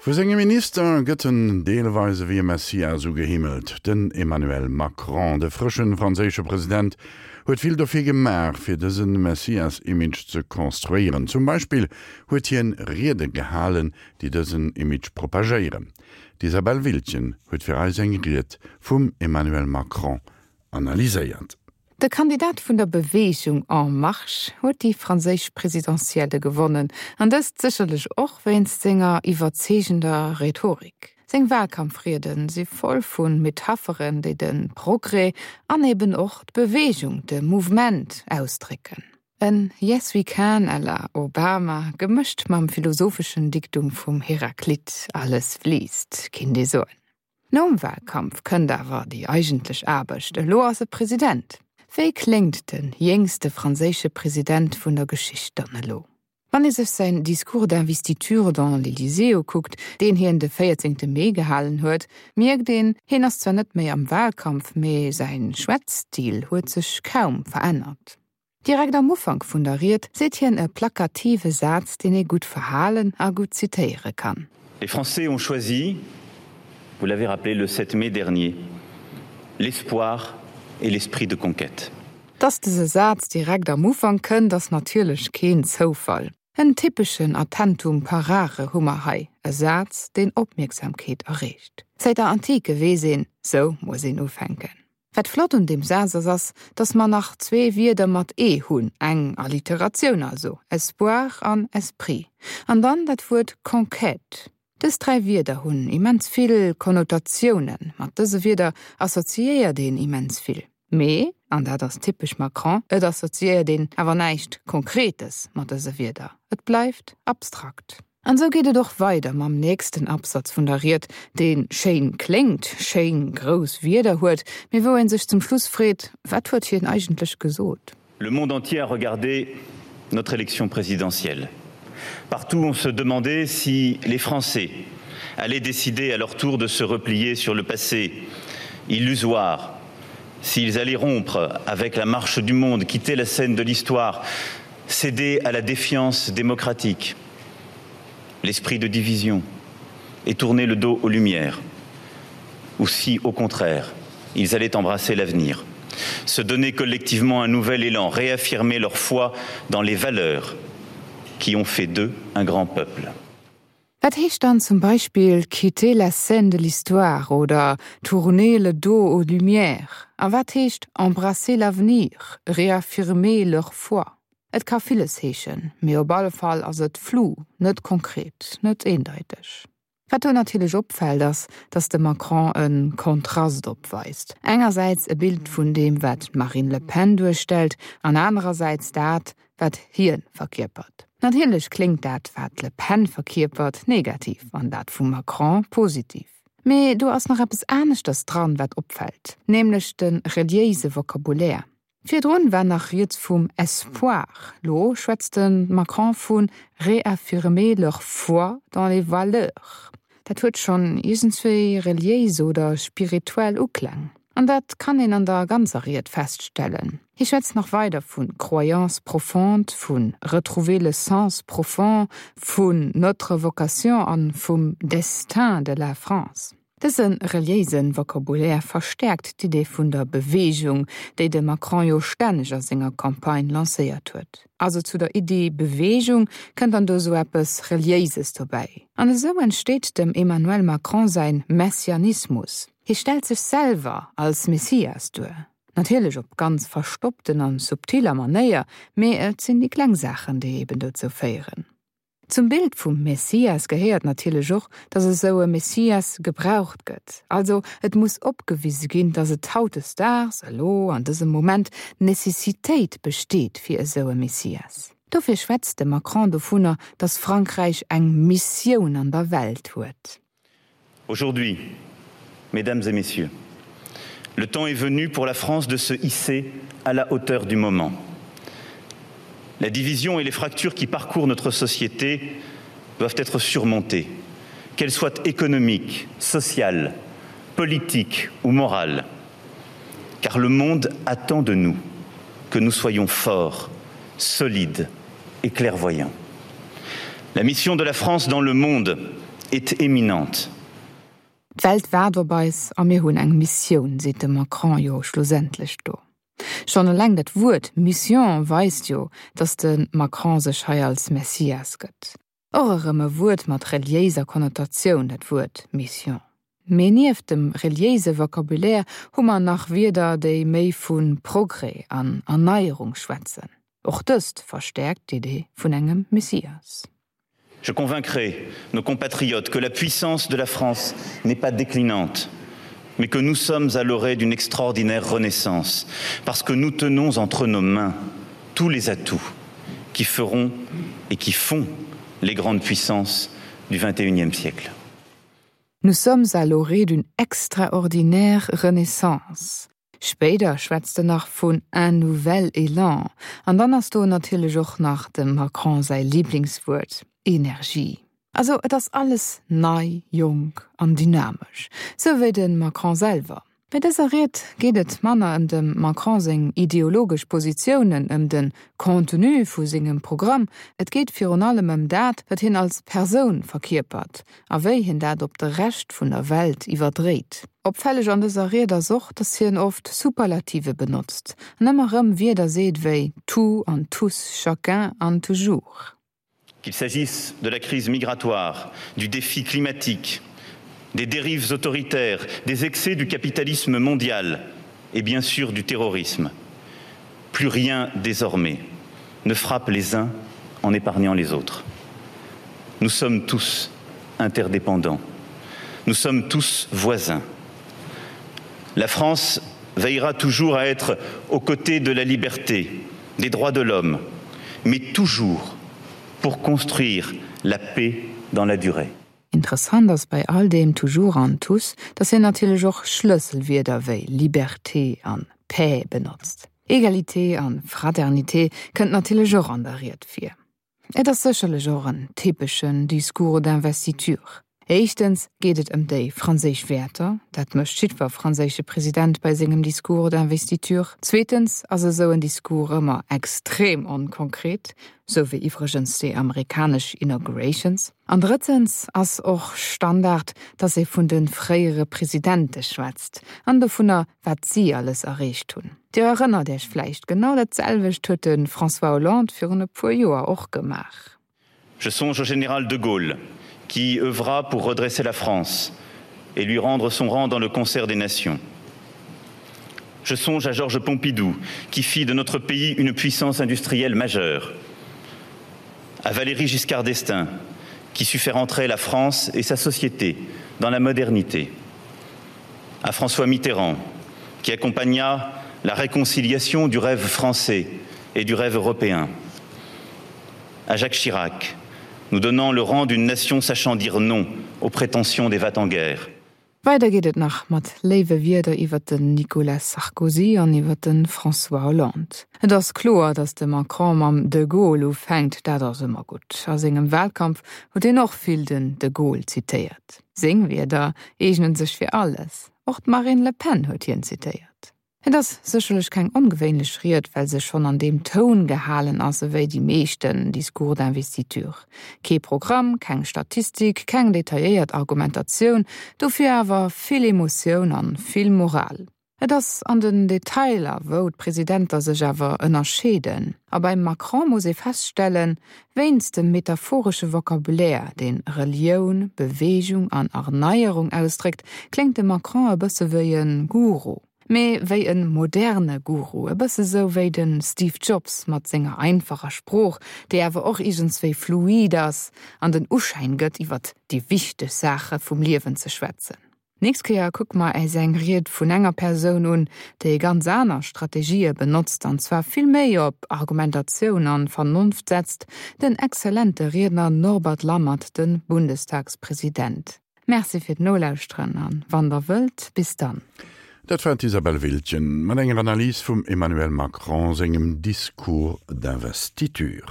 Vu senge Minister gëtt en deelweis ewéi e Messias ugehimmelt. Den Emmanuel Macron, de frësche franséische President, huet vill dofir gemaach, fir dëse Messias-Image ze konstruéieren. Zum Beispill huet hien Riede gehalen, déi dësen Image propagéieren. D'Isabelle Wildgen huet fir eis eng Ried vum Emmanuel Macron analyséiert. De Kandidat vun der Beweegung En Marche huet déi franséisch Presidentielle gewonnen, an dëst sécherlech och wéinst senger iwwerzeegender Rhetorik. Seng Walkampfriede si voll vu Metapheren, déi de Progrès an eben och d'Beweegung, de Mouvement, ausdrécken. En Yes we can à la Obama, gemëscht mam philosopheschen Diktum vum Heraklit, Alles fliisst, kinnt ee soen. Nom Wahlkampf kënnt awer déi eigentlech Aarbecht, elo ass e President. Wéi kléngt de jéngste franséische President vun der Geschicht dann elo? Wann ee sech säin Discours d'investiture dans l'Elysée ukuckt, deen hien de 14 Mee gehalen huet, mierkt een, hien ass zwar net méi am Wahlkampf, mee säin Schwätzstil huet sech kaum verännert. Direkt am Ufank vun der Ried seet hien e plakative Saz, deen ee gutt verhalen a gutt zitéiere kann. Les Français ont choisi, vous l'avez rappelé le 7 mai dernier, l'espoir et l'esprit de conquête. Dass dëse Saz direkt am Ufank kënnt, ass natierlech keen Zoufall. En typeschen Attentum parare hu mer hei, e Saz, deen Opmierksamkeet erreegt. Säit der Antike weess een, sou muss een ufänken. Wat flott un deem Saz ass, ass, datt mer nach zwee Wierder mat e hunn, eng Alliteratioun also, espoir an esprit, an dann dat Wuert conquête. Dës dräi Wierder hunn immens vill Konnotatiounen, mat dëse Wierder assoziéiert een immens vill. Mee, an dat ass typesch Macron, et assoziéiert een awer näischt Konkretes mat dëse Wierder, et bleift abstrakt. An esou geet et och weider mam nächsten Absatz vun der Ried, dee schéin kléngt, schéin grouss Wierder huet, mee wou ee sech zum Schluss freet, Wat huet hien eigentlech gesot? Le monde entier a regardé notre élection présidentielle. Partout on se demandait si les Français allaient décider à leur tour de se replier sur le passé illusoire, s'ils allaient rompre avec la marche du monde, quitter la scène de l'histoire, céder à la défiance démocratique l'esprit de division et tourner le dos aux lumières, ou si, au contraire, ils allaient embrasser l'avenir, se donner collectivement un nouvel élan, réaffirmer leur foi dans les valeurs qui ont fait d'eux un grand peuple. Wat heescht dann zum Beispill quitter la scène de l'histoire oder tourner le dos aux lumières? A wat heescht embrasser l'avenir, réaffirmer leur foi? Et ka villes heeschen, mee op alle Fall ass et flou, net konkret, net eendeiteg. Wat do natierlech opfält ass, datt de Macron e Kontrast opweist, engersäits e Bild vun deem wat d'Marine Le Pen duerstellt an anerersäits dat wat hie verkierpert. Natierlech kléngt dat wat d'Le Pen verkierpert negativ an dat vum Macron positiv. Mee do ass nach eppes aneschters dran wat opfält, nämlech de reliéise Vocabulaire. Virdrun war nach rieds vum Espoir, lo schwätzt de Macron vu réaffirmer leur foi dans les valeurs. Dat huet schonn iergendswéi reliéis oder spirituell Ukläng. An dat kann een an der ganzer Ried feststellen. Hie schwätzt nach weider vu croyance profonde, vu retrouver le sens profond, vun notre vocation an vum destin de la France. Dëse reliéise Vocabulaire verstäerkt d'Idee vun der Beweegung, déi de Macron jo stänneg a senger Campagne lancéiert huet. Also zu der Iddi Beweegung kënnt dann do esou eppes Reliéises dobäi. An esou entsteet dem Emmanuel Macron säin Messianismus. Hie stellt sech selwer als Messias duer. Natierlech op ganz verstoppten an subtiller Manéier, mee et sinn déi kleng Saachen, déi eben dozou féieren. Zum Bild vum Messias gehéiert natierlech och, datt esou e Messias gebraucht gëtt. Also et muss opgewise ginn, datt et hautdesdaags, elo an dësem Moment, d'Necessitéit besteet fir esou e Messias. Dofir schwätzt de Macron dovunner, datt Frankräich eng Missioun an der Welt huet. Aujourd'hui, mesdames et messieurs, le temps est venu pour la France de se hisser à la hauteur du moment. La division et les fractures qui parcourent notre société doivent être surmontées, qu'elles soient économiques, sociales, politiques ou morales, car le monde attend de nous que nous soyons forts, solides et clairvoyants. La mission de la France dans le monde est. est éminente. D'Welt waart op eis a mir hunn eng Missioun, seet de Macron jo schlussendlech do. Schonn eleng dat Wuert Mission weist jo, datt de Macron sech hei als Messias gëtt. Och erëm e Wuert mat reliéiser Konnotatioun, dat Wuert Mission. Mee nieft dem reliéise Vocabulaire hu mer nach Wierder, déi méi vu Progrès an Erneierung schwätzen. Och dëst verstäerkt d'Idee vun engem Messias. Je convaincrai nos compatriotes que la puissance de la France n'est pas déclinante, mais que nous sommes à l'orée d'une extraordinaire renaissance, parce que nous tenons entre nos mains tous les atouts qui feront et qui font les grandes puissances du XXIe siècle. Nous sommes à l'orée d'une extraordinaire renaissance. Spéider schwätzt en nach vun un nouvel élan. An dann ass do natierlech och nach dem Macron säi Liblingswuert, Energie. Also et ass alles nei, jonk an dynamesch, sou wéi de Macron selwer. Bei dëser Ried geet et manner ëm dem Macron seng ideologesch Positiounen, ëm de Contenu vu sengem Programm, et geet virun allem ëm dat, wat hien als Persoun verkierpert a wéi hien dat op de Rescht vun der Welt iwwerdréit. Opfälleg an dëser Ried ass och, datt hien oft Superlative benotzt an ëmmer erëm Wierder seet wéi tout an tous, chacun an toujours. Qu'il s'agisse de la crise migratoire, du défi climatique, des dérives autoritaires, des excès du capitalisme mondial et bien sûr du terrorisme. Plus rien désormais ne frappe les uns en épargnant les autres. Nous sommes tous interdépendants. Nous sommes tous voisins. La France veillera toujours à être aux côtés de la liberté, des droits de l'homme, mais toujours pour construire la paix dans la durée. Interessant ass bei all deem toujours an tous, datt hien natierlech och Schlësselwierder wéi Liberté an Paix benotzt. Egalité an Fraternité kënnt natierlech och an der Ried vir. Et ass sécherlech och en typeschen Discours d'investiture. Éischtens geet et ëm déi franséisch Wäerter, dat mécht jiddwer franséische President bei sengem Discours d'investiture. Zweetens ass esou en Discours ëmmer extrem onkonkret, sou wéi iwwregens déi amerikanesch Inaugurations. An drëttens ass och Standard, datt ee vun de fréiere Presidente schwätzt an dovunner, wat si alles erreecht hunn. Dir erënnert Iech vläicht, genau dat selwecht huet de François Hollande virun e puer Joer och gemaach. Je songe au général de Gaulle, qui œuvra pour redresser la France et lui rendre son rang dans le concert des nations. Je songe à Georges Pompidou, qui fit de notre pays une puissance industrielle majeure. À Valérie Giscard d'Estaing, qui sut faire entrer la France et sa société dans la modernité. À François Mitterrand, qui accompagna la réconciliation du rêve français et du rêve européen à Jacques Chirac, nous donnant le rang d'une nation sachant dire non aux prétentions des vats en guerre. Weider geet et nach mat léiwe Wierder iwwer den Nicolas Sarkozy an iwwer de François Hollande. Et ass kloer, datt de Macron mam de Gaulle ufänkt, dat ass ëmmer gutt. A sengem Wahlkampf huet hien och vill den de Gaulle zitéiert. Seng Wierder eegnen sech fir alles. Och d'Marine Le Pen huet hien zitéiert. Et ass sécherlech keng ongewéinlech Ried, well se schonn an deem Toun gehalen ass ewéi déi meeschten Discours d'investiture. Kee Programm, keng Statistik, keng detailléiert Argumentatioun, dofir awer vill Emotioun an vill Moral. Et ass an den Detailer, wou d'Presidenter sech awer ënnerscheeden. A beim Macron muss ee feststellen, Wéinst dem metaphoresche Vocabulaire, deen Relioun, Beweegung an Erneierung ausdréckt, kléngt de Macron e bësse wéi e Guru. Mee wéi e moderne Guru, e bësse sou wéi de Steve Jobs mat senger einfacher Sprooch, déi awer och iergendswéi fluid ass an den Uschäin gëtt, iwwer déi wichteg Saache vum Liewen ze schwätzen. Nächst Kéier kucke mer äis eng Ried vun enger Persoun un, déi ganz aner Strategië benotzt, an zwar vill méi op Argumentatioun an Vernonft setzt, den exzellente Riedner Norbert Lammert, de Bundestagspresident. Merci fir d'Nolauschteren an, wann der wëllt, bis dann. Dat war d'Isabelle Wiltgen mat enger Analys vum Emmanuel Macron sengem Discours d'investiture.